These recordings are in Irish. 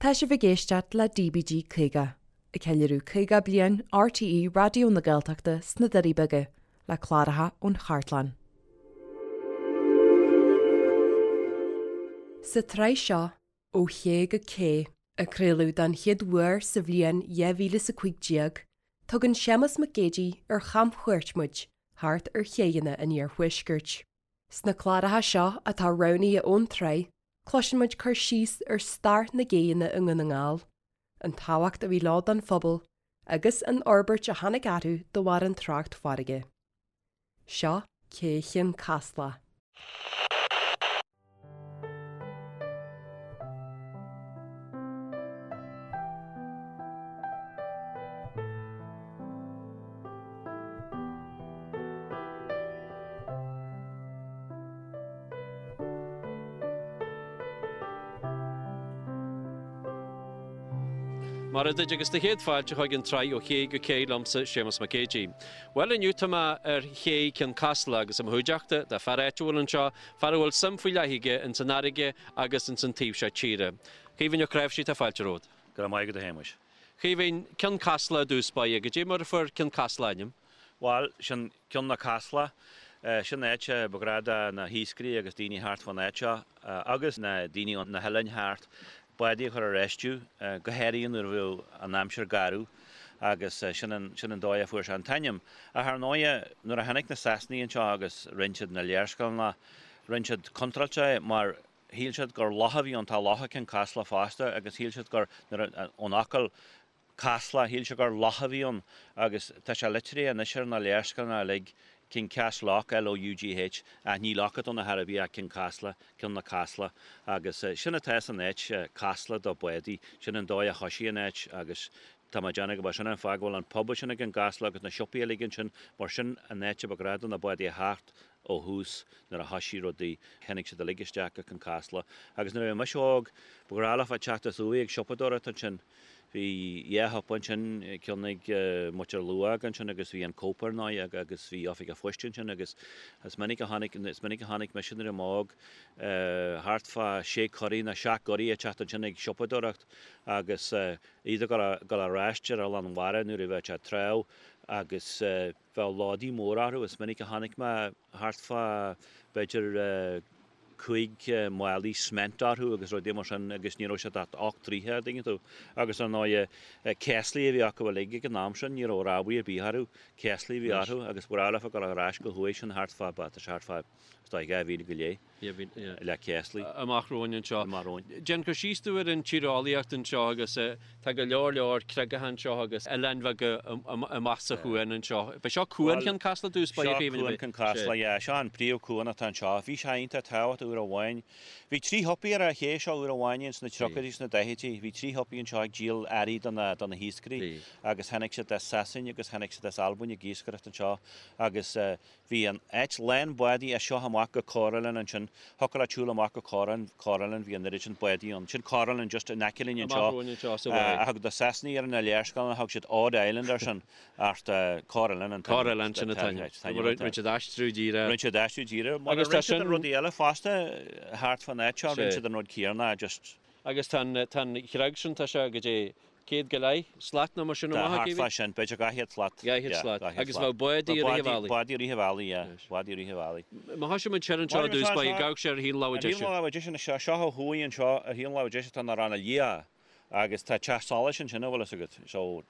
Tá sibh ag éisteacht le DBG 50, ag ceiliúradh 50 bliain RTÉ Raidió na Gaeltachta sna Doirí Beaga, le cláracha ón chartlann. Sa tsraith seo, Ó Ché go Cé, a craoladh don chéad uair sa bhliain 2015, tugann Séamus Mac Géidigh ar chamchuairt muid thart ar chéidheanna an iarthuaiscirt. Sna cláracha seo atá roghnaithe ón tsraith, cloiseann muid cur síos ar stair na gcéidheanna i nDún na nGall, an tábhacht a bhí leo don phobal agus an fhorbairt a tháinig orthu de bharr an trácht farraige. Seo Cé Chionn Caslach. Mairfidh duit agus do chéad fáilte chuig an tsraith Ó Ché go Cé liomsa, Séamus Mac Géidigh. Bhuel inniu tá mé ar Ché Cionn Caslach agus i mo chuideachta tá fear áitiúil anseo, fear a bhfuil suim faoi leith aige ins an fharraige agus ins an taobh seo tíre. Caoimhín Ó Cnáimhsí, tá fáilte romhat. Go raibh maith agat a Shéamuis. Chaoimhín, Cionn Caslach i dtús báire, goidé mar a fuair Cionn Caslach a ainm? Bhail, sin Cionn na Casla. Sin áit a ba ghnách do na hiascairí agus daoine thart fán áit seo agus na daoine ó na hoileáin thart bádaí a chur ar fheistiú, go háirithe nuair a bheadh an aimsir garbh agus sin an, sin an dóigh a fuair sé an t-ainm. Ach ar ndóighe, nuair a tháinig na Sasanaigh anseo agus rinn siad na léarscáileanna, rinn siad contráilte é mar shíl siad gur loch a bhí ann, tá loch i gCionn Caslach fosta agus shíl siad gur, nuair a, ón fhocal Casla, shíl siad gur loch a bhí ann agus tá sé litrithe anois ar na léarscáileanna uilig, Cionn Casloch, L-O-U-G-H, ach ní loch atá ann ar chor ar bith ach Cionn Casla, Cionn na Casla agus sin atá san áit, Casla do bádaí, sin an dóigh a thoisigh an áit agus tá mé ag déanamh go b'é sin an fáth go bhfuil an pub sin i gCionn Caslach agus na siopaí uilig ansin mar sin an áit a ba ghnách do na bádaí a theacht ó thús nuair a thoisigh rudaí, tháinig siad uilig isteach go Cionn Caslach agus nuair a bhí mise óg, ba ghnách leofa teacht as uaidh ag siopadóireacht ansin. Bhí dhá shiopa ansin, ceann ag muintir Luag ansin agus bhí an Cope ar ndóigh agus bhí oifig an phoist ansin agus is minic a chonaic, is minic a chonaic mise nuair a bhí mé óg, thart fá sé corraí nó seacht gcorraí ag teacht ansin ag siopadóireacht agus iad ag dul ar ais ar Oileán Mhara nuair a bheadh sé tráth agus Bheadh lódaí móra orthu. Is minic a chonaic mé thart fá b'fhéidir 5 málaí cement orthu agus rudaí mar sin agus ní raibh siad ach 8 dtroithe, an dtuigeann tú. Agus ar ndóighe céaslaí a bhí acu uilig ag an am sin, ní raibh rámhaí ar bith orthu, céaslaí a bhí orthu agus ba ghnách leofa dul ar ais go thuaidh sin thart fá, tá sé thart fá, is dóigh, 2 mhíle go leith. le céaslaí. Amach romhainn anseo. Amach romhainn. Déan cur síos dúinn ar an tíreolaíocht anseo agus tá go leor leor creagacha anseo agus oileáin bheaga amach sa chuan anseo. B'é seo Cuan Chionn Caslach i dtús báire Seo Cuan Chionn Caslach, yeah. Seo an príomh-chuan atá anseo. Bhí sé iontach tábhachtach uair amháin. Bhí trí shiopaí ar an ché seo uair amháin ins na tríochaidí is na daichidí. Bhí trí shiopaí anseo ag díol earraí do na do na hiascairí agus tháinig siad as Sasain agus tháinig siad as Albain ag iascaireacht anseo agus Bhí an áit lán bádaí as seo amach go Corr Oileán ansin. Thiocfadh leat siúl amach go Corr Corr Oileán, bhí an oiread sin bádaí ann. Sin Corr Oileán just in aice linn anseo. Amach romhainn anseo sa bhaile. Thug na Sasanaigh ar na léarscáileanna, thug siad Odd Island air sin, ach Corr Oileán an t-ainm. Corr Oileán, sin an t-ainm. Rinne siad aistriú díreach. Rinne siad aistriú díreach. Mar rinne siad an rudaí eile fosta thart fán áit seo, rinne siad an rud céanna just. Agus tá an chreag sin, tá sé goidé céad go leith slat nó mar sin amach, a Tá, thart fá sin, b'fhéidir 200 slat. 200 slat. Agus bheadh bádaí i rith an bhealaigh. Bádaí i rith an bhealaigh, yeah. Bádaí i rith an bhealaigh. Má thosaíonn muid siar anseo i dtús báire, gabhadh sé ar thaobh na láimhe deise. Ar thaobh na láimhe deise anseo, seo ó thuaidh anseo, ar thaobh na láimhe deise tá na Ranna Liatha agus tá teach solais ansin, an bhfuil fhios agat. So,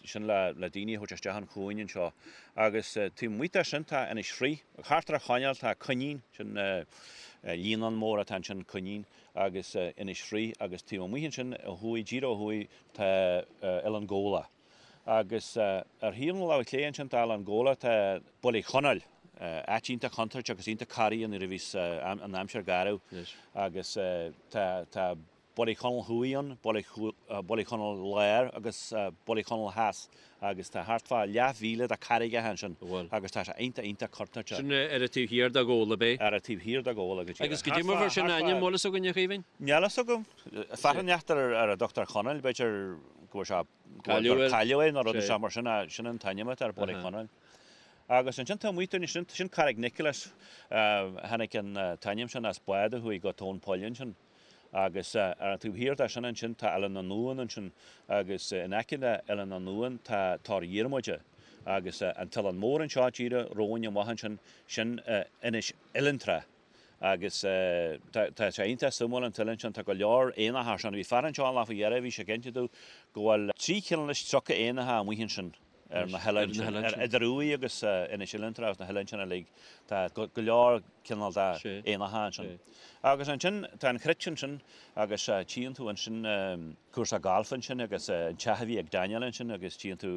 sin le le daoine a thabhairt isteach an chuain anseo. Agus taobh amuigh de sin tá Inis Fraoich. Thart ar an choirnéal tá Coinín, sin líonán mór atá ansin, Coinín. agus Inis Fraoich agus taobh amuigh ansin ó thuaidh, díreach ó thuaidh, tá Oileán Ghabhla. Agus ar thaobh na láimhe clé ansin tá Oileán Ghabhla, tá Baile Chonaill, áit iontach contúirteach agus iontach corraithe nuair a bhíos an aimsir garbh agus tá tá Baile Chonaill Thuaidh ann, Baile Chonaill Láir agus Baile Chonaill Theas. Agus tá thart fá leathmhíle de carraigeacha ansin agus tá sé iontach, iontach contúirteach. Sin ar an taobh thiar de Ghabhla, ab é? Ar an taobh thiar de Ghabhla, go díreach. Agus goidé mar a fuair sin a ainm, bhfuil fhios againn, a Chaoimhín? Níl fhios agam. Fear inteacht ar ar a dtugtar Chonaill, b'fhéidir go bhfuil sé, go bhfuil, gur cailleadh é nó rud inteacht mar sin, sin an t-ainm atá ar Baile Chonaill. Agus ansin taobh amuigh dúinn, sin, sin Carraig Nicholas, tháinig an t-ainm sin as bád a chuaigh go tóin poill ansin. Agus ar an taobh thiar de sin ansin tá Oileán na nDamhan ansin agus in aice le Oileán na nDamhan tá Tor Dhiarmada agus an t-oileán mór anseo díreach romhainn amach ansin, sin Inis Oileantrá. Agus tá sé iontach suimiúil an t-oileán sin, tá go leor éanacha ansin. Bhí fear anseo an lá faoi dheireadh, bhí sé ag inse domh go bhfuil 330 éanacha amuigh ansin ar na hoileáin sin, ar idir Uaigh agus Inis Oileantrá agus na hoileáin sin uilig. Tá go leor cineál de éanacha ansin. Agus ansin tá an chruit ansin agus tchíonn tú ansin cúrsa gailf ansin agus an teach a bhí ag Daniel ansin agus tchíonn tú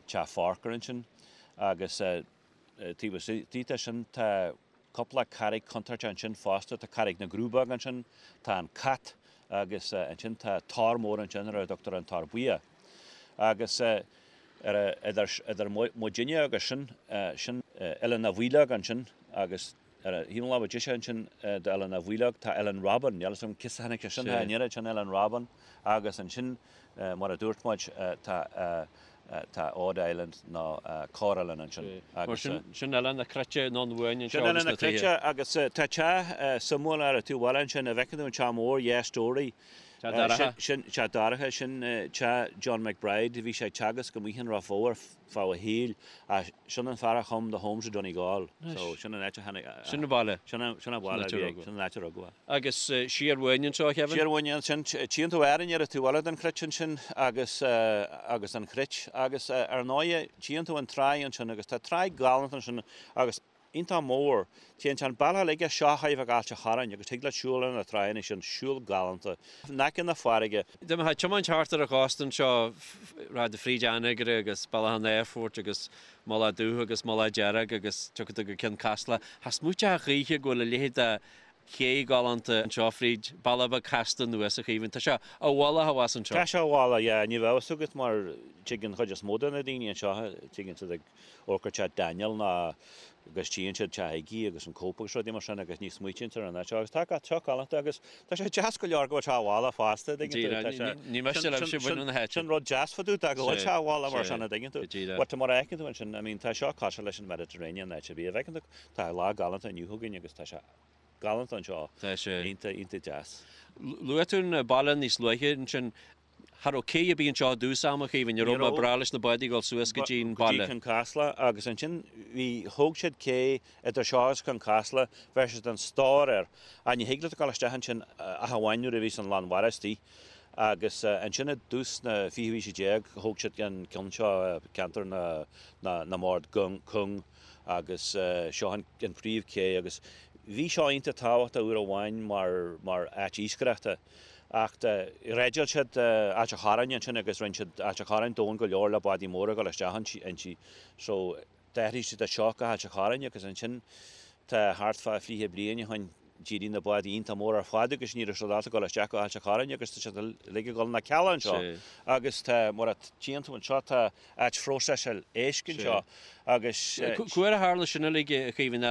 teach Forker ansin agus Taobh istigh de sin tá cúpla carraig chontúirteach ansin fosta, tá Carraig na gCrúbóg ansin, tá an Cat agus ansin tá tor mór ansin ar a dtugtar an Tor Buíoch. Agus ar idir idir muidinne agus sin, sin Oileán na bhFaoileog ansin agus ar an thaobh na láimhe deise ansin d'Oileán na bhFaoileog tá Oileán Robin, níl a fhios agam cé as a tháinig sé sin, an oiread sin Oileán Robin agus ansin mar a dúirt muid tá Tá Odd Island nó Corr-Oileán ansin agus. Mar sin Oileán na Cruite anonn uainn anseo agus na tithe. Sin Oileán na Cruite agus tá teach suimiúil ar an taobh eile ansin, an bhfeiceann tú an teach mór, dhá stóraí. Teach Dorcha. Sin teach Dorcha, sin teach John McBride, bhí sé ag teagasc amuigh in Ráth Bhoth ar feadh a shaoil ach sin an fear a chum The Homes of Donegal so sin an áit a tháinig. Sin an baile. Sin an baile a bhí aige, sin an áit a rugadh é. Agus siar uainn anseo, a Kevin? Siar uainn ansin, tchíonn tú Árainn ar an taobh eile den chruit ansin agus agus an chruit agus ar ndóighe tchíonn tú an tráigh ansin agus tá tráigh galánta ansin agus iontach mór. Téann an bealach uilig as seo chóir a bheith go Ailt a' Chorráin agus thig leat siúl ar na tráigheanna sin, siúl galánta in aice na farraige. Dá mbeifeá ag tiomáint thart ar an chósta anseo, rachfá fríd Anagaire agus Bealach an Aerfoirt agus Mullach Dubh agus Mullach Dearg agus tiocfaidh tú go Cionn Caslach, cha smaoiteofá choíche go bhfuil a leithéid de ché galánta anseo fríd bealach beag casta anuas, a Chaoimhín. Tá sé i bhfolach abhus anseo. Tá sé i bhfolach, yeah. Ní bheadh fhios agat mar tigeann an chuid is mó de na daoine anseo, tigeann siad ag amharc ar teach Daniel nó agus tchíonn siad teach Iggy agus an Cóip agus rudaí mar sin agus ní smaoitíonn siad ar an áit seo agus tá seo galánta agus tá sé deas go leor go bhfuil sé i bhfolach fosta, an dtuigeann tú. Tá sé, Ní miste libhse baint na háite. Sin rud deas fá dtaobh de go bhfuil sé i bhfolach mar sin, an dtuigeann tú. But mar a fheiceann tú ansin, I mean tá seo cosúil leis an Mediterranean áit ar bith a bhfeiceann tú, tá lá galánta inniu againn agus tá sé galánta anseo. Tá sé. Iontach, iontach deas. Luaigh tú an baile níos luaithe ansin. Cha raibh cé ar bith anseo i dtús ama, a Chaoimhín, ní raibh, ba bhreá leis na bádaí dul suas go dtí an baile. Go dtí Cionn Caslach agus ansin bhí, thóg siad cé idir seo agus Cionn Caslach, bheir siad an stór air ach ní thig leat dul isteach ansin ach amháin nuair a bhíos an lán mhara istigh agus ansin i dtús na fichiú haoise déag thóg siad an ceann seo ceantar na, na, na mbord cúng agus seo an, an príomh ché agus bhí seo iontach tábhachtach uair amháin mar, mar áit iascaireachta. Ach dhreideáil siad Ailt a' Chorráin ansin agus rinne siad Ailt a' Chorráin domhain go leor le bádaí móra a dhul isteach inti. So d'athraigh siad é seo go hAilt a' Chorráin agus ansin tá thart fá fliche bliain ó shin d'éirigh na bádaí iontach mór ar fad agus ní raibh siad ábalta dul isteach go hAilt a' Chorráin agus tá siad uilig ag dul na Cealla anseo. Agus tá, mar a tchíonn tú anseo, tá áit phróiseáil éisc anseo agus. Cá huair a tharla sin uilig, a Chaoimhín?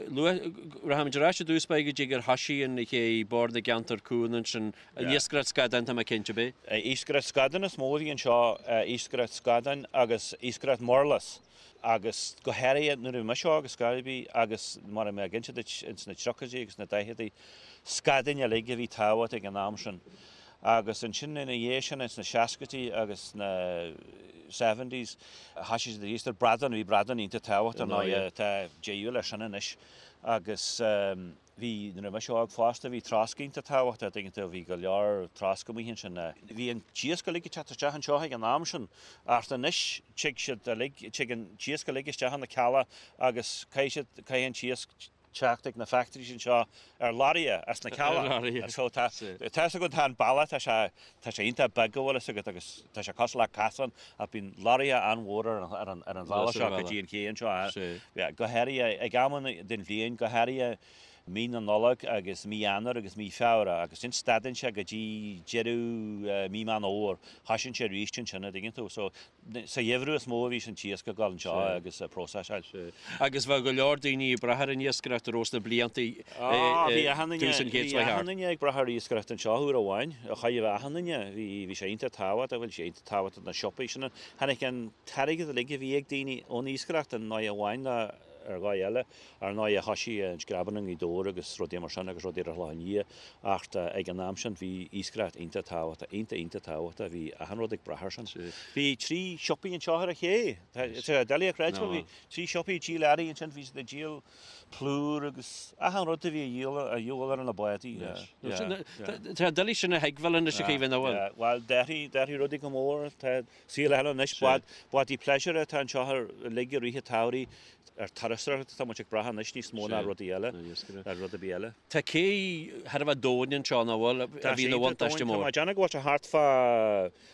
Luath, rachaimid ar ais i dtús báire go dtí gur thoisigh an ché Bord na gCeantar Cúng ansin, an iascaireacht scadán tá mé cinnte, ab é? Iascaireacht scadán is mó a bhí anseo, iascaireacht scadáin agus iascaireacht murlas agus go háirithe nuair a bhí mise óg ar scor ar bith agus mar a bhí mé ag inse duit ins na tríochaidí agus na daicheadaí, scadáin uilig a bhí tábhachtach ag an am sin. Agus ansin ina dhiaidh sin, ins na seascaidí agus na seventies, thoisigh siad ag iascaireacht bradán, bhí bradán iontach tábhachtach ar ndóigh, tá deireadh leis sin anois. Agus bhí, nuair a bhí mise óg fosta, bhí trosc iontach tábhachtach, an dtuigeann tú, bhí go leor trosc amuigh ansin. Bhí an t-iasc uilig ag teacht isteach anseo ag an am sin, ach anois tig siad uilig, tig an t-iasc uilig isteach ina Cealla agus caithfidh siad, caithfidh an t-iasc, teacht ag na factories anseo ar lorraithe as na Cealla. So tá tá fhios agat tá an bealach tá sé tá sé iontach beag an bhfuil fhios agat agus tá sé cosúil le casán ach bíonn lorraithe an-mhór ar an ar an ar an bhealach seo go dtí an ché anseo. Go háirithe ag amanna den bhliain go háirithe mí na Nollag agus mí Eanáir agus mí Feabhra agus ansin stadann sé go dtí deireadh mí Meán Fhómhair. Thoisíonn sé arís ansin an dtuigeann tú. So Sa gheimhreadh is mó a bhíos an t-iasc ag dul anseo agus ag próiseáil. Agus bheadh go leor daoine ag brath ar an iascaireacht ar nós na blianta Bhí achan duine, tús an chéid seo thart. Bhí achan duine ag brath ar iascaireacht anseo uair amháin. Chaithfeadh achan duine, bhí, bhí sé iontach tábhachtach, bhuel bhí sé iontach tábhachtach na siopaí sin. Tháinig an t-airgead uilig a bhí ag daoine ón iascaireacht an ndóigh amháin le. ar dhóigh eile. Ar ndóighe thoisigh an screamhan i nGaoth Dobhair agus rudaí mar sin agus rudaí ar a shlí aniar acht ag an am sin bhí iascaireacht iontach tábhachtach, iontach iontach tábhachtach, bhí achan rud ag brath ar sin. Bhí trí siopaí anseo ar an ché, tá sé doiligh a chreidiúint, bhí trí siopaí ag díol earraí ansin, bhí siad ag díol plúr agus achan rud a bhí a dhíol a dhíobháil ar na bádaí. Tá sé doiligh sin a thuigbheáil anois a Chaoimhín, an bhfuil? Bhuel, d'athraigh, d'athraigh rudaí go mór. Tá saol eile anois. Bád, bádaí pléisiúir atá anseo uilig i rith an tsamhraidh. Ar turasóireacht atá muid ag brath anois níos mó ná rudaí eile, ná rud ar bith eile. Tá cé thar a bheith domhain anseo, nach bhfuil? A bhí ina bhuntáiste mór. Tá mé ag déanamh go bhfuil sé thart fá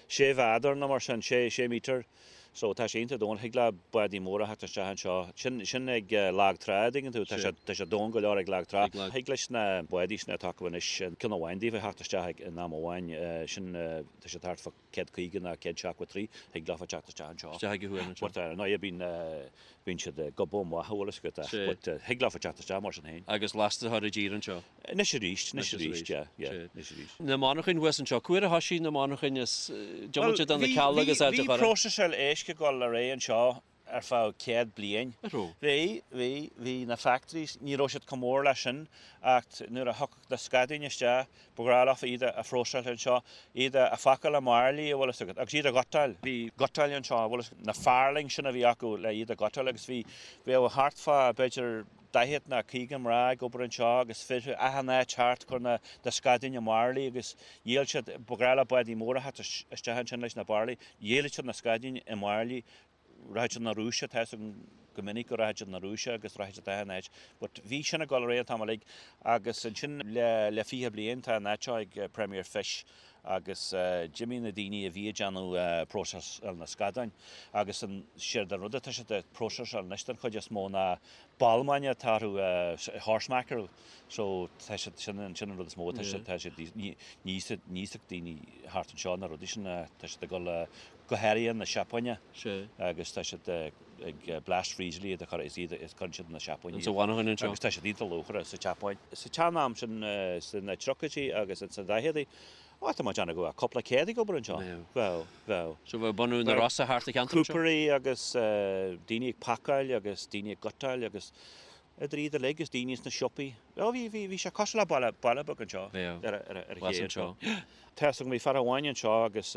sé mhéadar nó mar sin, sé, sé meter. So tá sé iontach domhain, thig le bádaí móra theacht isteach anseo. Sin, sin ag lag trá, an dtuigeann tú, tá sé, tá sé domhain go leor ag lag trá. Thig leis na bádaí sin atá acu anois, ceann amháin díobh a theacht isteach ag, in am amháin, sin, tá siad thart fá 150 nó 173, thig leofa teacht isteach anseo. Isteach ag an chuan anseo. But ar ndóigh bíonn, bíonn siad ag gobadh amach, an bhfuil fhios agat, ach, but thig leofa teacht isteach mar sin féin. Agus lasta a chur i dtír anseo. Anois arís, anois arís, yeah, yeah, anois arís. Na monarchain thuas anseo, cá huair a thoisigh na monarchain is diomaite de na cealla agus áit a Bhí próiseáil éisc ag dul ar aghaidh anseo ar feadh 100 bliain. Bhí, bhí, bhí na factories, ní raibh siad chomh mór leis sin ach nuair a thiocfadh na scadáin isteach, ba ghnách leofa iad a phróiseáil anseo, iad a phacáil i mbairillí, an bhfuil fhios agat, agus iad a ghutáil. Bhí gutáil anseo, an bhfuil fhios agat, na farlings sin a bhí acu le iad a ghutáil agus bhí, bheadh thart fá, b'fhéidir, 40 ná 50 mná ag obair anseo agus fir achan áit thart ag cur na scadáin i mbairillí agus dhíol siad, ba ghnách le bádaí móra theacht isteach ansin leis na bairillí, dhíolfadh siad na scadáin i mbairillí, rachadh siad 'na Rúise, tá fhios agam go minic go rachadh siad 'na Rúise agus rachadh siad achan áit but bhí sin ag dul ar aghaidh an t-am uilig agus ansin le le 20 bliain tá an áit seo ag Premier Fish agus d'imigh na daoine a bhí ag déanamh próiseáil na scadáin agus an séard an rud atá siad ag próiseáil anois den chuid is mó ná balmáin atá orthu, horse mackerel, so tá siad, sin an, sin an rud is mó atá siad, tá siad, ní, ní íosfadh daoine thart anseo na rudaí sin, tá siad ag dul go háirithe na Seapáine agus tá siad ag blast freeze iad a chur, is iad, is cuireann siad na Seapáine iad. Sa mhonarchain anseo. Agus tá siad iontach luachmhar sa tSeapáin. Sa tsean-am sin, sna tríochaidí agus sna daicheadaí, Ó, tá mé ag déanamh go bhfuil cúpla céad ag obair anseo. Bheadh, bheadh. So bheadh bunú na Rosa thart sa cheantar anseo? Cúpairí agus daoine ag pacáil agus daoine ag gutáil agus idir iad uilig agus daoine sna siopaí. Ó, bhí, bhí, bhí sé cosúil le baile, baile beag anseo. Bheadh. Ar, ar, ar an ché anseo. Tá fhios agam, bhí fear amháin anseo agus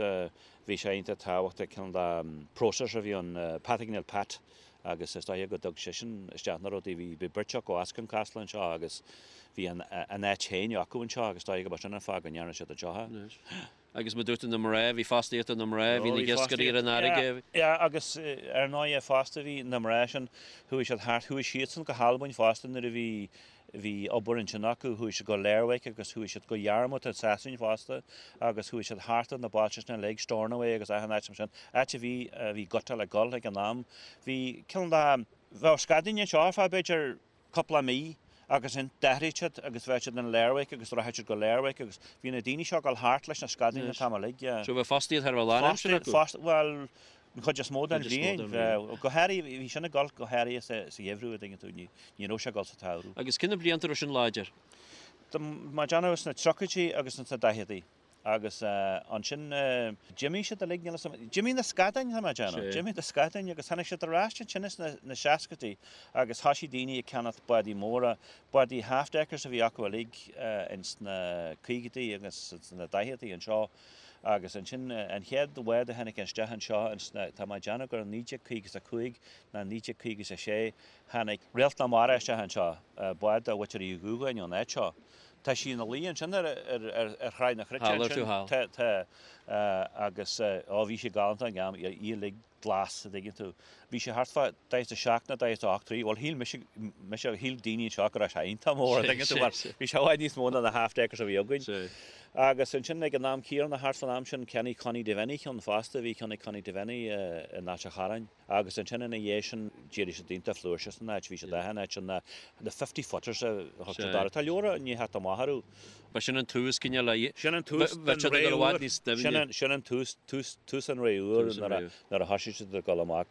bhí sé iontach tábhachtach, cineál de processor a bhí ann, Pat Neil Pat. agus is dóiche go dtug seisean isteach na rudaí. Bhí bhí beirt acu as Cionn Caslach anseo agus bhí an an áit féin acu anseo agus is dóiche go ba sin an fáth go ndearna siad anseo é. Agus mar dúirt tú na mná, bhí fostaíocht do na mná, bhí na hiascairí ar an fharraige. Yeah, agus ar ndóighe fosta bhí na mná sin, chuaigh siad thart, chuaigh siadsan go hAlbain fosta nuair a bhí Bhí obair ansin acu, chuaigh siad go Lerwick agus chuaigh siad go Yarmouth i Sasain fosta agus chuaigh siad thart ar na bailte sin uilig, Stornoway agus achan áit mar sin, áit a bhí, a bhí gutáil ag dul ag an am. Bhí cineál de, bheadh scadáin anseo ar feadh b'fhéidir cúpla mí agus ansin d'athraigh siad agus bheadh siad in Lerwick agus rachadh siad go Lerwick agus bhí na daoine seo ag dul thart leis na scadáin an t-am uilig, yeah. So bheadh fostaíocht thar a bheith lánaimseartha acu? Fostaíocht, bhuel, An chuid is mó den bhliain. Go háirithe, bhí sin ag dul go háirithe sa gheimhreadh, an dtuigeann tú, ní raibh sé ag dul sa tsamhradh. Agus cé na blianta a raibh sin láidir? Tá mé ag déanamh sna tríochaidí agus sna daicheadaí. Agus ansin d'imigh siad uilig, níl 'fhios a'm, d'imigh na scadáin, tá mé ag déanamh, d'imigh na scadáin agus tháinig siad ar ais ansin sna seascaidí agus thoisigh daoine ag ceannacht bádaí móra, bádaí half-deckers a bhí acu uilig ins na caogaidí agus sna daicheadaí anseo. Agus ansin an chéad bhád a tháinig isteach anseo ins na, tá mé ag déanamh gur in 1955 ná 1956, tháinig Réalt na Mara isteach anseo, bád de Mhuintir Uí Dhúgáin ón áit seo. Tá sí ina luí ansin ar, ar, ar, ar Thráigh na Cruite ansin. Tá, tá, agus, ó bhí sí galánta ag an am, í uilig glas, a dtuigeann tú. Bhí sé thart fá 47 nó 48 troigh, bhuel shíl mise, mise, shíl daoine anseo go raibh sé iontach mór, a dtuigeann tú, mar bhí sé i bhfad níos mó ná na half deckers a bhí againn. Agus ansin ag an am céanna, thart fán am sin, cheannaigh Connie Devenny ceann fosta, bhí ceann ag Connie Devenny in Ailt a' Chorráin. Agus ansin ina dhiaidh sin, d'éirigh siad iontach flúirseach san áit, bhí siad achan áit, na, na fifty footers a thug siad orthu. Tá leabhar i ndiaidh theacht amach orthu. Ba sin an tús cineál a. Sin an tús den ré úr. Sin an tús, tús, tús an ré úr nuair a, nuair a thoisigh siad ag dul amach.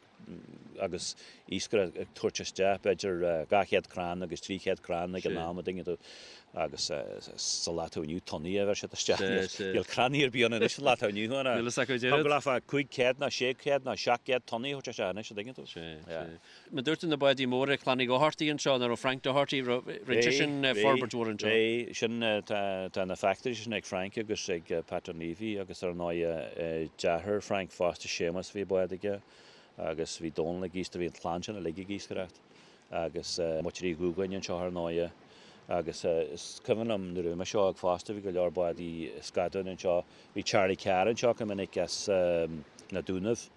agus iascaireacht ag tabhairt isteach b'fhéidir 200 crann agus 300 crann ag an am an dtuigeann tú agus sa lá atá inniu tonnaí a bheir siad isteach. Níl crannaí ar bith ann anois sa lá atá inniu ann. Níl fhios acu Thig leofa 500 nó 600 nó 700 tonnaí a thabhairt isteach anois an dtuigeann tú. Mar dúirt tú na bádaí móra Clann Uí Dhochartaigh anseo, nach raibh Frank Doherty, rinne seisean forbairt mhór anseo. Bhí, sin, tá na factories sin ag Frank agus ag Pat Dunleavy agus ar ndóigh deartháir Frank fosta, Séamus, bhí bád aige agus bhí Dónal ag iascaireacht, bhí an chlann sin uilig ag iascaireacht agus muintir Uí Dhúgáin anseo ar ndóigh agus is cuimhin liom nuair a bhí mise óg fosta bhí go leor bádaí scadáin anseo, bhí Charlie Carr anseo go minic as na Dúnaibh.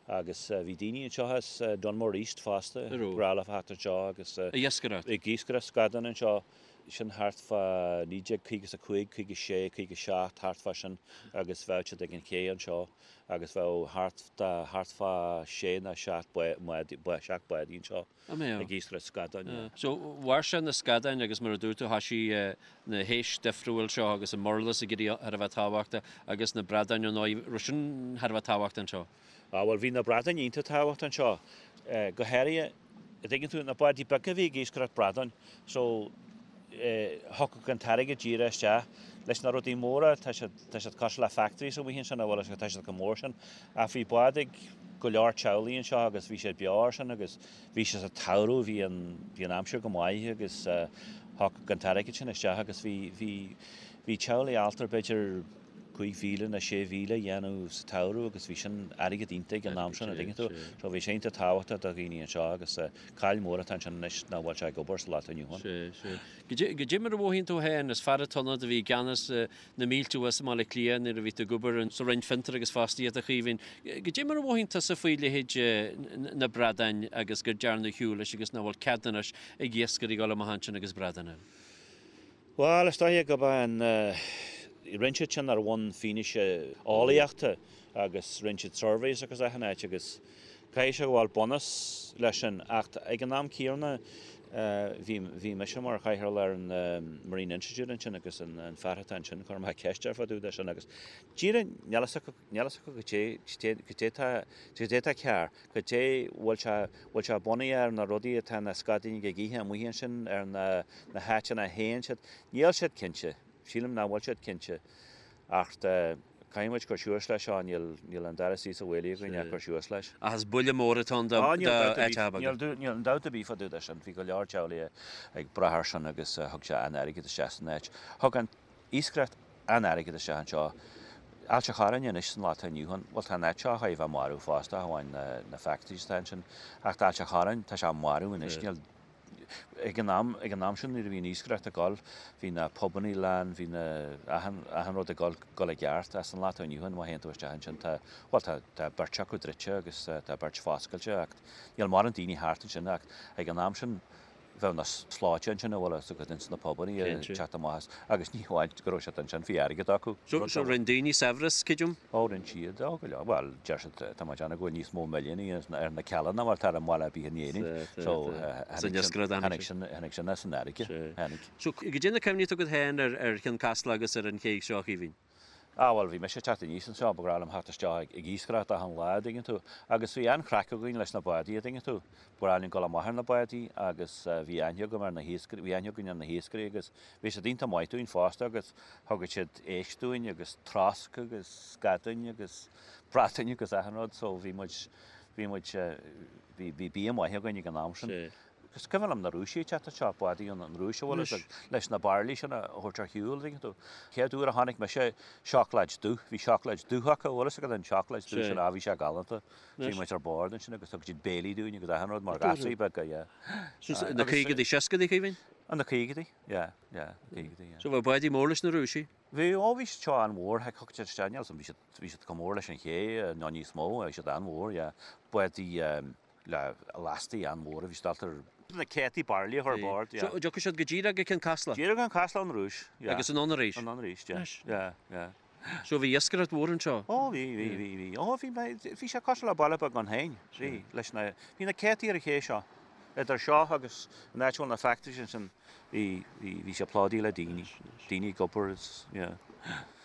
Agus bhí daoine anseo as Dunmore East fosta, ba ghnách leofa theacht anseo agus Ag iascaireacht. ag iascaireacht scadán anseo, sin thart fá 1955, 56, 57, thart fá sin agus bheadh siad ag an ché anseo agus bheadh thart thart fá sé nó seacht bádaí anseo. An mbeadh? Ag iascaireacht scadáin, yeah. So, mhair sé na scadáin agus mar a dúirt tú, thoisigh na héisc difriúil seo agus an murlas ag éirí thar a bheith tábhachtach agus na bradáin ar ndóigh, raibh sin thar a bheith tábhachtach anseo? Ah bhuel bhí na bradáin iontach tábhachtach anseo, go háirithe, an dtuigeann tú, na bádaí beaga a bhí ag iascaireacht bradáin, so thiocfadh an t-airgead díreach isteach. Leis na rudaí móra, tá siad, tá siad cosúil le factories amuigh ansin, a bhfuil a fhios agat, tá siad chomh mór sin. Ach bhí bád ag go leor teaghlaigh anseo agus bhí siad beo air sin agus bhí sé sa tsamhradh, bhí an, bhí an aimsir go maith agus thiocfadh an t-airgead sin isteach agus bhí, bhí, bhí teaghlaigh ábalta b'fhéidir 5,000 nó 6,000 a dhéanamh sa tsamhradh agus bhí sin airgead iontach ag an am sin, an dtuigeann tú. So bhí sé iontach tábhachtach do dhaoine anseo agus caill mór atá ansin anois nach bhfuil sé ag obair sa lá atá inniu ann. Sea, sea. Goidé mar a mhothaíonn tú féin, is fear atá ann a bhí i gceannas na mílte thuas i mBaile Átha Cliath nuair a bhí tú ag obair sa Roinn Fiontar agus Fostaíochta, a Chaoimhín. Goidé mar a mhothaíonn tusa faoi leithéid na bradáin agus gur dearnadh ar shiúl leis agus nach bhfuil cead anois ag iascairí dul amach ansin agus bradáin a fháil? Bhuel, is dóiche gurb é an rinne siad sin ar bhonn fianaise eolaíochta agus rinne siad surveys agus achan áit agus Caithfidh sé go bhfuil bunús leis sin ach ag an am céanna bhí bhí mise mar chathaoirleach ar an Marine Institute ansin agus an fear atá ansin chuir mé ceist air fá dtaobh de sin agus díreach níl fhios acu níl fhios acu goidé goidé tá goidé tá cearr goidé bhfuil sé bhfuil sé bunaithe ar na rudaí atá na scadáin ag ithe amuigh ansin ar na na háiteanna a théann siad níl siad cinnte sílim nach bhfuil siad cinnte ach Caithfidh muid cur suas leis seo, níl an dara suí sa bhaile againn ach cur suas leis. Ach is buille mór atá ann d'áiteacha beaga. Níl aon dabht ar bith fá dtaobh de sin. Bhí go leor teaghlaigh ag brath air sin agus thug sé an-airgead isteach san áit. Thug an iascaireacht an-airgead isteach anseo. Ailt a' Chorráin anois san lá atá inniu ann, bhuel tá an áit seo chóir a bheith marbh fosta, ach amháin na factories atá ansin. Ach tá Ailt a' Chorráin, tá sé marbh anois, níl Ag an am, ag an am sin nuair a bhí an iascaireacht ag dul, bhí na pubannaí lán, bhí na, achan, achan rud ag dul, dul i gceart. Ach san lá atá inniu ann, má théann tú isteach ansin, tá, bhuel tá, tá beirt acu druidte agus tá beirt foscailte ach níl mórán daoine thart ansin ach ag an am sin bheadh na slóite ansin a bhfuil a fhios agat ins na pubannaí ag teacht amach as agus ní hamháin go raibh siad ansin, bhí airgead acu. So, so rinne daoine saibhreas, creidim? Ó, rinne siad, ó, go leor. Bhuel, deir siad, tá mé ag déanamh go bhfuil níos mó milliúnaí ar na Cealla ná mar atá ar an mbaile ar bith in Éirinn. So, tháinig sin, tháinig sin as an fharraige, tháinig. So, goidé na cuimhní atá agat féin ar Chionn Caslach agus ar an ché seo, a Chaoimhín? Ah, bhuel, bhí mise ag teacht aníos anseo, ba ghnách liom theacht isteach ag iascaireacht achan lá, an dtuigeann tú. Agus bhí an-chraic againn leis na bádaí, an dtuigeann tú. Ba ghnách linn dul amach ar na bádaí agus bhí aithne agam ar na hiascairí, bhí aithne againn ar na hiascairí agus bhí siad iontach maith dúinn fosta agus Thugadh siad éisc dúinn agus trosc agus scadáin agus bradáin agus achan rud so bhí muid, bhí muid, bhí, bhí bia maith againn ag an am sin. Is cuimhin liom na Rúisigh ag teacht anseo, bádaí ón Rúis a bhfuil a fhios agat, leis na bairillí sin a thabhairt ar shiúl, an dtuigeann tú. Chéad uair a chonaic mise seacláid dubh, bhí seacláid dubh acu, bhfuil a fhios agat an seacláid dubh sin, ah bhí sé galánta. Bhí muid ar bord ansin agus thug siad béilí dúinn agus achan rud mar ghasraí beaga, yeah. Na caogaidí, seascaidí, Caoimhín? Na caogaidí, yeah. Yeah, caogaidí, yeah. So bheadh bádaí mór leis na Rúisigh? Bhí, ó bhí siad seo an-mhór, heck, thug siad isteach, níl 'fhios a'm, bhí siad, bhí siad chomh mór leis an ché, nó níos mó, bhí siad an-mhór, yeah. Bádaí le lastaí an-mhóra, bhí siad ábalta na céadtaí bairillí a chur ar bord, yeah. So dtiocfadh siad go díreach go Cionn Caslach? Díreach go Cionn Caslach ón Rúis, yeah. Agus anonn arís? Anonn arís, yeah, yeah, yeah. So bhí iascaireacht mhór anseo? Ó bhí, bhí, bhí, bhí. Ó bhí, bhí sé cosúil le baile beag ann féin, bhí, leis na, bhí na céadtaí ar an ché seo, idir seo agus an áit a bhfuil na factories ansin, bhí, bhí, bhí sé plódaithe le daoine, daoine ag obair is, yeah.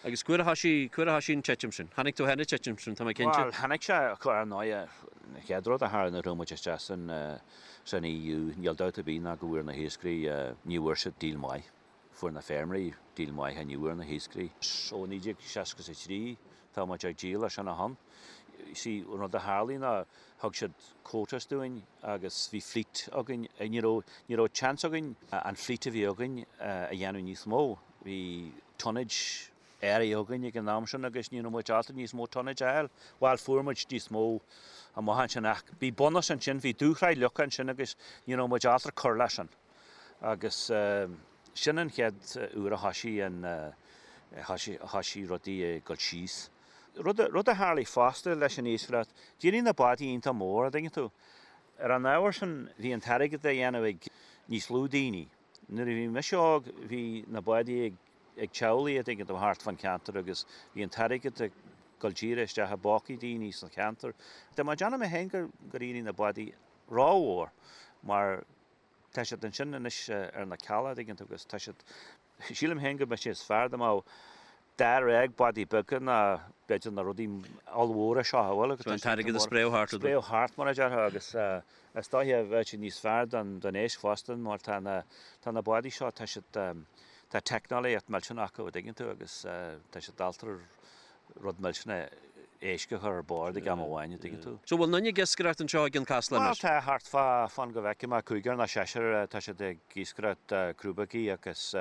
Agus cá huair a thoisigh, cá huair a thoisigh an titim sin? Chonaic tú féin an titim sin, tá mé cinnte. Bhuel, chonaic sé, ar ndóigh, An chéad rud a tharla nuair a chuaigh muid isteach san san EU, níl dabht ar bith ná go bhfuair na hiascairí, ní bhfuair siad deal maith. Fuair na feirmeoirí deal maith ach ní bhfuair na hiascairí. Ó 1963 tá muid ag díol as sin ó shin. See, an rud a tharlaigh ná thug siad quotas dúinn agus bhí fleet againn. Ní raibh, ní raibh chance againn an fleet a bhí againn a dhéanamh níos mó. Bhí tonnage áirithe againn ag an am sin agus ní raibh muid ábalta níos mó tonnage a fháil. Bhuel, fuair muid níos mó amach ansin ach bhí bunús ansin, bhí dúshraith leagtha ansin agus ní raibh muid ábalta cur leis sin. Agus sin an chéad uair a thoisigh an, thoisigh rudaí ag dul síos. Rud a tharlaigh fosta leis an iascaireacht, d'éirigh na bádaí iontach mór, a' dtuigeann tú. Ar an ábhar sin bhí an t-airgead á dhéanamh ag níos lú daoine. Nuair a bhí mise óg bhí na bádaí ag ag teaghlaigh a' dtuigeann tú thart fán cheantar agus bhí an t-airgead ag dul díreach isteach i bpócaí daoine sa cheantar. Tá mé ag déanamh mé féin gur gur éirigh na bádaí rómhór mar tá siad ansin anois ar na cealla a' dtuigeann tú agus tá siad, sílim féin go mbeadh sé is fearr dá mbeadh dáréag bádaí beaga ná b'fhéidir na rudaí ollmhóra seo a bhfuil So an t-airgead a spréadh thart. Spréadh thart mar a déarfá agus is dóiche bheadh sé níos fearr don don éisc fosta mar tá na tá na bádaí seo tá siad tá teicneolaíocht millteanach acu a dtuigeann tú agus tá siad ábalta rud millteanach éisc a chur ar bord ag am amháin a dtuigeann tú. So bhfuil aon duine ag iascaireacht anseo i gCionn Caslach anois? Bhuel tá thart fá fan go bhfeicfidh mé cúigear nó seisear tá siad ag iascaireacht crúbógaí agus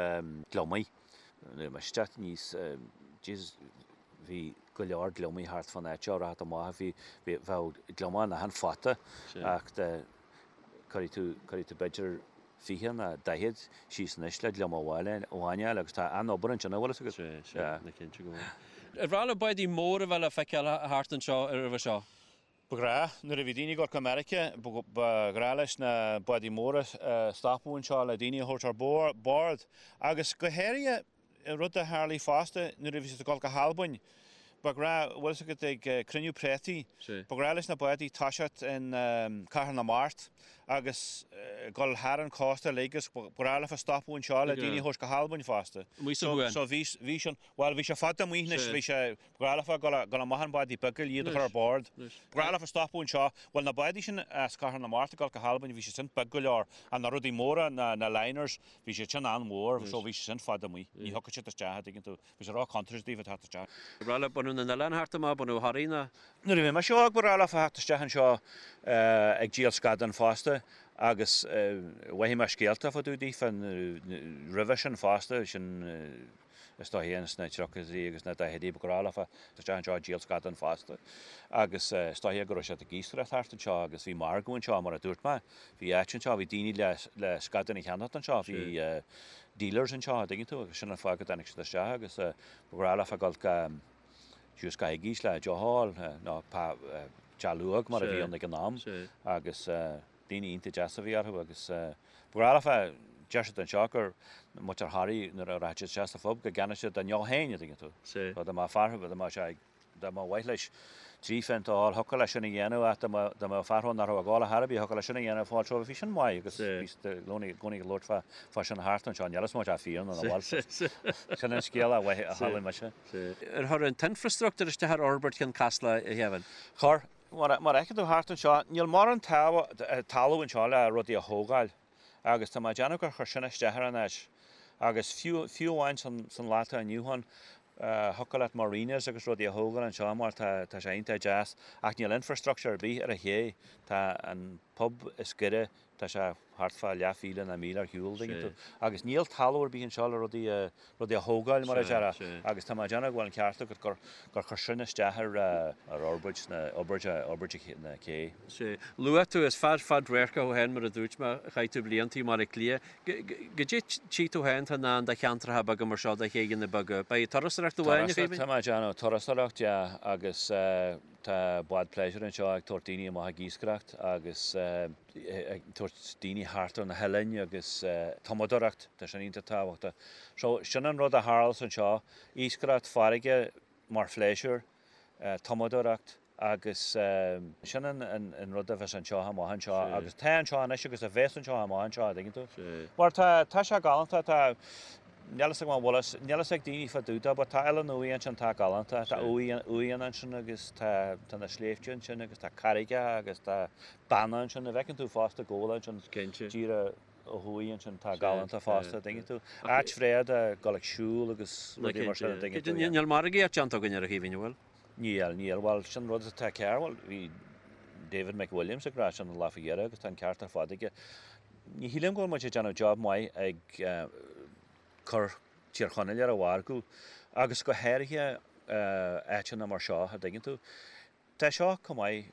gliomaigh. Nuair a bhí mise ag teacht aníos, Jesus, bhí go leor gliomaigh thart fán áit seo, rachadh amach, bhí, bhí, bheadh gliomach in achan phota ach de, cuirfidh tú, cuirfidh tú b'fhéidir 20 nó 40 síos anois le gliomach amháin a fháil agus tá an-obair ansin, an bhfuil fhios agat? Sea, sea, ná cinnte go bhfuil. Ar mhaith le bádaí móra a bheith le feiceáil thart anseo roimhe seo? Ba ghnách, nuair a bhí daoine ag dul go Meiriceá, ba ghnách leis na bádaí móra stopadh anseo le daoine a thabhairt ar bord. Agus go háirithe, rud a tharlaigh fosta nuair a bhí siad ag dul go hAlbain, ba ghnách, bhfuil fhios agat, ag cruinniú préataí, ba ghnách leis na bádaí toiseacht in Cathair na Mart agus dul thar an cósta uilig agus ba ghnách leofa stopadh anseo le daoine a thabhairt go hAlbain fosta. Amuigh sa Chuan. So bhí sin, bhuel bhí sé fada amuigh anois, bhí sé, Ba ghnách leofa dul amach ar bhádaí beaga iad a chur ar bord. Ba ghnách leofa stopadh anseo. Bhuel, na bádaí sin as Cathair na Mart ag dul go hAlbain, bhí siad sin beag go leor. Ach na rudaí móra, na liners, bhí siad sin an-mhór, so bhí siad sin fada amuigh. Ní thiocfadh siad isteach, a' dtuigeann tú. Bhí sé ró-chontúirteach daofa teacht isteach. Ba ghnách le bunadh na n-oileán thart amach, bunadh Thoraí ná. Nuair a bhí mise óg, ba ghnách leofa theacht isteach anseo ag díol scadán fosta agus mhothaigh mé scéalta fá dtaobh daofa roimhe sin fosta, sin, Is dóiche ins na tríochaidí agus na daichidí ba ghnách leofa teacht isteach anseo ag díol scadán fosta agus is dóiche go raibh siad ag iascaireacht thart anseo agus bhí margadh anseo mar a dúirt mé. Bhí áit anseo, bhí daoine le le scadáin a cheannacht anseo, bhí dealers anseo a' dtuigeann tú agus sin an fáth go dtáinig siad isteach agus ba ghnách leofa dul go síos go Iggy's le deoch a fháil nó Teach Luaidhe mar a bhí ann ag an am agus Daoine iontach deas a bhí orthu agus ba ghnách leofa, deir siad anseo gur muintir Thoraí nuair a rachadh siad isteach sa phub go gceannódh siad a ndeoch féin, a dtuigeann tú. So dá mbeadh fear, dá mbeadh sé, dá mba mhaith leis trí phéint a fháil, thiocfadh leis sin a dhéanamh ach dá mbeadh, dá mbeadh fear ann nach raibh ag ól ar chor ar bith, thiocfadh leis sin a dhéanamh fáil so bhí sin maith agus bhí siad i gcónaí, i gcónaí ag labhairt fá, fá sin thart anseo, níl 'fhios má tá fíor nó nach bhfuil, sin an scéal a chuala mise. Ar chuir an t-infreastruchtúr isteach ar fhorbairt Chionn Caslach, a Kevin? Chuir. Mar a fheiceann tú thart anseo, níl mórán talamh anseo le rudaí a thógáil agus tá mé ag déanamh gur chuir sin isteach ar an áit. Agus fiú, fiú amháin san lá atá inniu ann, thiocfadh leat marinas agus rudaí a thógáil anseo mar tá, tá sé iontach deas ach níl infrastructure ar bith ar an ché. Tá an pub is gaire Tá sé thart fá leathmhíle nó míle ar shiúl, dtuigeann tú. Agus níl talamh ar bith anseo le rudaí a, rudaí a thógáil, mar a déarfá. Agus tá mé ag déanamh go bhfuil an ceart agat gur, gur chuir sin isteach ar, ar fhorbairt na, fhorbairt, fhorbairt na cé. Sea. Luaigh tú, is fear fadradharcach thú féin, mar a dúirt mé, chaith tú blianta i mBaile Átha Cliath. Goidé tchí tú féin atá i ndán do cheantracha beaga mar seo, do chéidheanna beaga? Beidh turasóireacht amháin, a Kevin? Turasóireacht, tá mé ag déanamh, turasóireacht, yeah, agus Tá bád pléisiúir anseo ag tabhairt daoine amach ag iascaireacht agus ag tabhairt daoine thart ar na hoileáin agus tumadóireacht, tá sin iontach tábhachtach. So sin an rud a tharlas anseo, iascaireacht farraige mar phléisiúr, tumadóireacht agus sin an rud a bheas anseo amach anseo agus tá anseo anois agus a bheas anseo amach anseo, an dtuigeann tú? Mar tá, tá sé galánta, tá. Níl fhios agam an bhfuil fhios, níl fhios ag daoine fá dtaobh dó, but tá Oileán Uaighe ansin tá galánta, tá uaigheanna ansin agus tá, tá na sléibhte ansin agus tá carraigeacha agus tá beanna ansin, a bhfeiceann tú fosta Gabhla ansin, díreach ó thuaidh ansin, tá galánta fosta, dtuigeann tú. Áit bhreá do dhul ag siúl agus rudaí mar sin, a dtuigeann tú. Níl margaíocht déanta againn ar a Chaoimhín, an bhfuil? Níl, níl, bhuel sin rud atá cearr, bhuel bhí David McWilliams ag rá sin an lá faoi dheireadh agus tá an ceart ar fad aige. Ní shílim go bhfuil muid ag déanamh job maith ag cur Tír Chonaill ar an mhargadh agus go háirithe áiteanna mar seo, a dtuigeann tú. Tá seo chomh maith,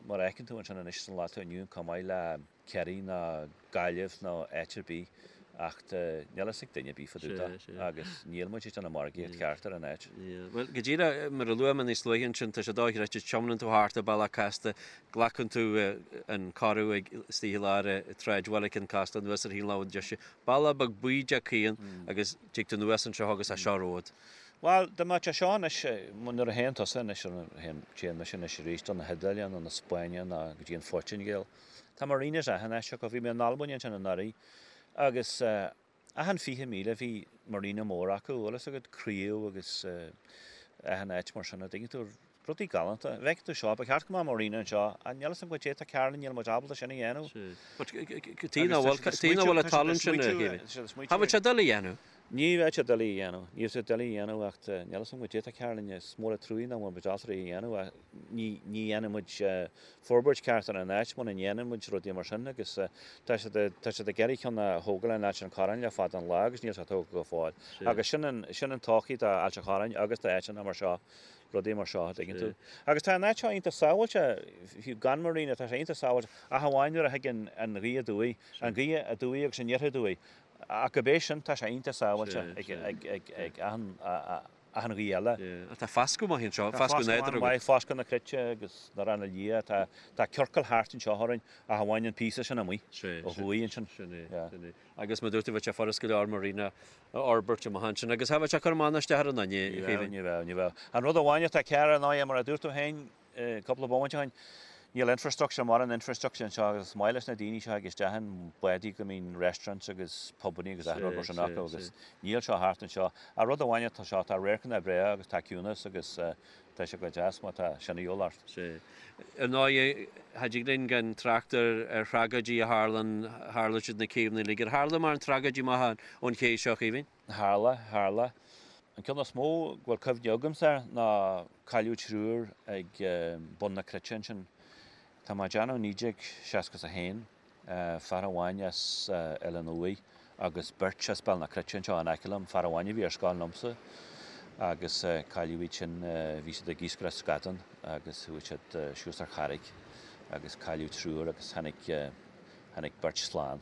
mar a fheiceann tú ansin anois san lá atá inniu ann, chomh maith le Ciarraí ná Gaillimh nó áit ar bith ach níl fhios ag duine ar bith fá dtaobh de agus níl muid ag déanamh margaíocht cheart ar an áit. Bhuel, go díreach mar a luaigh mé níos luaithe ansin, tá sé dochreidte, tiomáineann tú thart ar bealach casta, glacann tú an corradh ag istigh i lár tsráidbhaile Cionn Caslach anuas ar thaobh na láimhe deise, bealach beag bídeach caoin agus tig tú anuas anseo agus tá seo romhat. Bhuel, dá mbeadh sé seo anois, nuair a théann tusa anois, téann mise anois arís don na hIodáile nó na Spáinne nó go dtí an Phortaingéil, Tá marinas achan áit acu. Bhí mé in Albain ansin anuraidh agus achan 20,000 bhí marina mór acu, bhfuil fhios agat, craobh agus achan áit mar sin, a dtuigeann tú, rudaí galánta. Bhfeiceann tú seo, ba cheart go mbeadh marina anseo, ach níl fhios agam goidé tá cearr linn, níl muid ábalta sin a dhéanamh. Tuige nach bhfuil, tuige nach bhfuil an tallann sin, a Chaoimhín. Cha bhfuil sé doiligh a dhéanamh. Ní bheadh sé doiligh a dhéanamh, ní bheadh sé doiligh a dhéanamh ach níl fhios agam goidé tá cearr linn, is mór an truaigh nach bhfuil muid ábalta é a dhéanamh ach ní dhéanann muid forbairt ceart ar an áit muna ndéanann muid rudaí mar sin agus tá siad tá siad ag iarraidh ceann a thógáil in Ailt an Chorráin le fada an lá agus níl sé tógtha go fóill. Agus sin an sin an todhchaí do Ailt an Chorráin agus do áiteanna mar seo, rudaí mar seo, a dtuigeann tú. Agus tá an áit seo iontach sábháilte, fiú gan marina, tá sé iontach sábháilte ach amháin nuair a thigeann an ghaoth aduaidh, an ghaoth aduaidh agus aniar aduaidh. Ach gurb é sin, tá sé iontach sábháilte ag ag ag achan achan ghaoth eile. Ach tá foscadh maith anseo, foscadh nádúrtha agat. Maith, foscadh na cruite agus na Ranna Liath, tá tá ciorcal thart anseo orainn ach amháin an píosa sin amuigh ó thuaidh ansin. Sin é, sin é. Agus mar dúirt tú, bheadh sé furast go leor marina a fhorbairt amach ansin agus cha bheadh sé ag cur amach ná isteach ar aon duine, a Chaoimhín. Ní bheadh, ní bheadh. An rud amháin atá cearr ar ndóigh, mar a dúirt tú féin, Cúpla bomaite ó shin, níl infrastructure, mórán infrastructure anseo agus is maith leis na daoine seo ag isteach in bádaí go mbíonn restaurants agus pubannaí agus achan rud mar sin acu agus níl seo thart anseo. Ach rud amháin atá seo, tá radharcanna breá agus tá ciúnas agus tá sé go deas má tá sin a dhíobháil ort. Sea. Ar ndóigh, cha dtig linn gan trácht ar ar thragóidí a tharlann, tharla siad na céibheanna uilig. Ar tharla mórán tragóidí amach ón ché seo, a Chaoimhín? Tharla, tharla. An ceann is mó go bhfuil cuimhne agamsa air ná cailleadh triúr ag bun na Cruite ansin. Tá mé ag déanamh 1961, fear amháin as Oileán Uaighe agus beirt as Béal na Cruite anseo in aice liom, fear amháin a bhí ar scoil liomsa agus cailleadh iad sin, bhí siad ag iascaireacht scadán agus chuaigh siad suas ar charraig agus cailleadh triúr agus tháinig, tháinig beirt slán.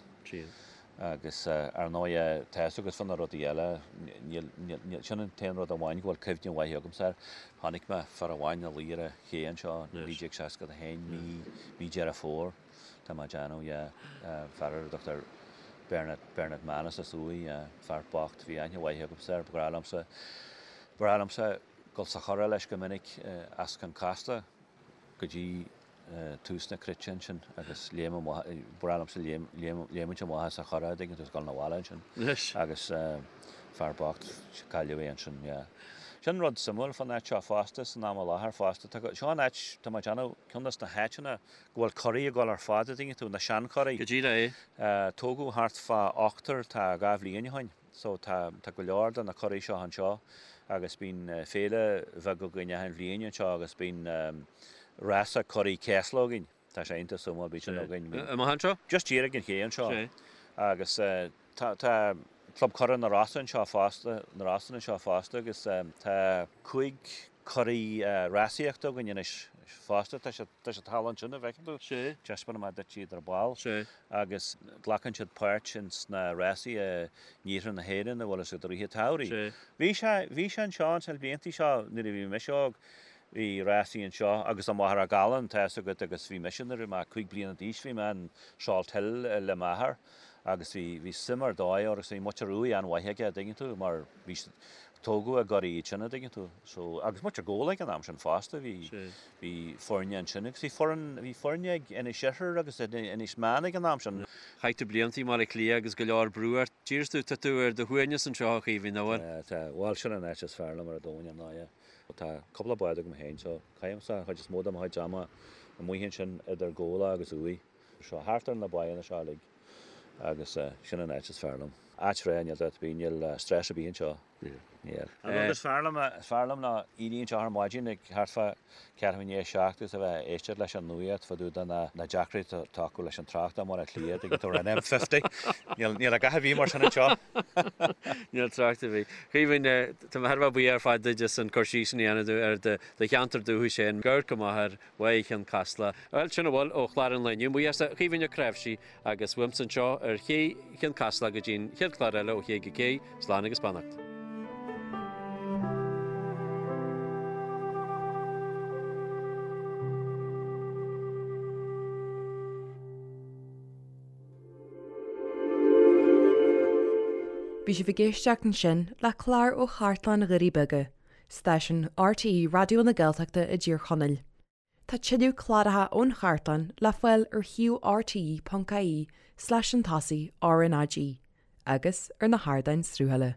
Agus ar ndóigh, tá fhios agat fá na rudaí eile, níl, níl, sin an t-aon rud amháin go bhfuil cuimhne mhaith agamsa air. Chonaic mé fear amháin ina luí ar an ché anseo, 1961, mí, mí Deireadh Fómhair, tá mé ag déanamh, yeah, fear ar a dtugtar Bernard, Bernard Manus as Uaigh, yeah, fear bocht, bhí aithne mhaith agamsa air, ba ghnách liomsa, ba ghnách liomsa dul sa churach leis go minic as Cionn Caslach go dtí tús na cruite ansin agus léim amach, ba bhreá liomsa léimint amach as an churach, dtuigeann tú, is dul 'na bhaile ansin. Agus fear bocht, cailleadh é ansin, yeah. Sin rud suimiúil fán áit seo fosta, san am i láthair fosta, tá, seo an áit, tá mé ag déanamh, ceann des na háiteanna go bhfuil curaí ag dul ar fad, a dtuigeann tú, na seanchuraí. Go díreach é. Tógadh thart fá ochtar, tá 2 bhliain ó shin. So tá, tá go leor de na curaí seo anseo agus bíonn féile bheag againn achan bhliain anseo agus bíonn rása curaí céasla againn. Tá sé iontach suimiúil, bíonn sin againn. Amach anseo? Just díreach ag an ché anseo. Agus tá, tá Club Currach na Rosann anseo fosta, na Rosann anseo fosta agus tá 5 curaí rásaíochta againn anois fosta. Tá siad, tá siad thall ansin, a bhfeiceann tú. Taispeánfaidh mé duit iad ar ball. Agus glacann siad páirt ins na rásaí i n-iarthar na hÉireann a bhfuil fhios agat i rith an tsamhraidh. Bhí sé, bhí sé anseo ins na bliantaí seo nuair a bhí mise óg, bhí rásaí anseo agus i Machaire Gallan, tá fhios agat, agus bhí mise nuair a bhí mé 5 bliana d'aois bhí mé in Salt Hill le m'athair. Agus bhí, bhí suim ar dóigh orthu agus bhí muintir Uaighe an-mhaith aige, a' dtuigeann tú, mar bhí, tógadh i gCoraí iad sin, a' dtuigeann tú. So, agus muintir Ghabhla ag an am sin fosta, bhí, bhí foirne ansin agus bhí foireann, bhí foirne ag Inis Oirthir agus Inis Meáin ag an am sin. Chaith tú blianta i mBaile Átha Cliath agus go leor brú ort. D'iarr tú, tá tú ar do shuaimhneas anseo a Chaoimhín, an bhfuil? Tá, tá, bhuel sin an áit is fearr liom ar an domhan, ar ndóigh. Tá cúpla bád agam féin so caithimse an chuid is mó de mo chuid ama amuigh ansin idir Gabhla agus Uaigh. Seo thart ar na báigheanna seo uilig agus sin an áit is fearr liom. Áit bhreá, níl dabht ar bith, níl stress ar bith anseo. Níl. An rud is fearr liom, is fearr liom ná éirí anseo ar maidin ag thart fá ceathrú i ndiaidh a 7 agus a bheith ag éisteacht leis an nuacht fá dtaobh de na na deacrachtaí atá acu leis an trácht i mBaile Átha Cliath, tuigeann tú, ar an M50. Níl, níl a dhath ar bith mar sin anseo. Níl trácht ar bith. Caoimhín, tá mé thar a bheith buíoch ar fad duit as an cur síos sin a dhéanamh ar do cheantar dúchais féin. Go raibh maith agat. Bhaile Chionn Caslach. Bhuel, sin a bhfuil ó chlár an lae inniu. Mo bhuíochas a Chaoimhín Ó Cnáimhsí agus uaimse anseo ar ché Chionn Caslach go dtí an chéad chlár eile ó Ché go Cé, slán agus beannacht. Bhí sibh ag éisteacht ansin le clár ó Chartlann Dhoirí Beaga, stáisiún RTÉ Raidió na Gaeltachta i dTír Chonaill. Tá tuilleadh cláracha ón chartlann le fáil ar shuíomh rte.ie slash an tosaigh RnaG agus ar na hardáin sruthaithe.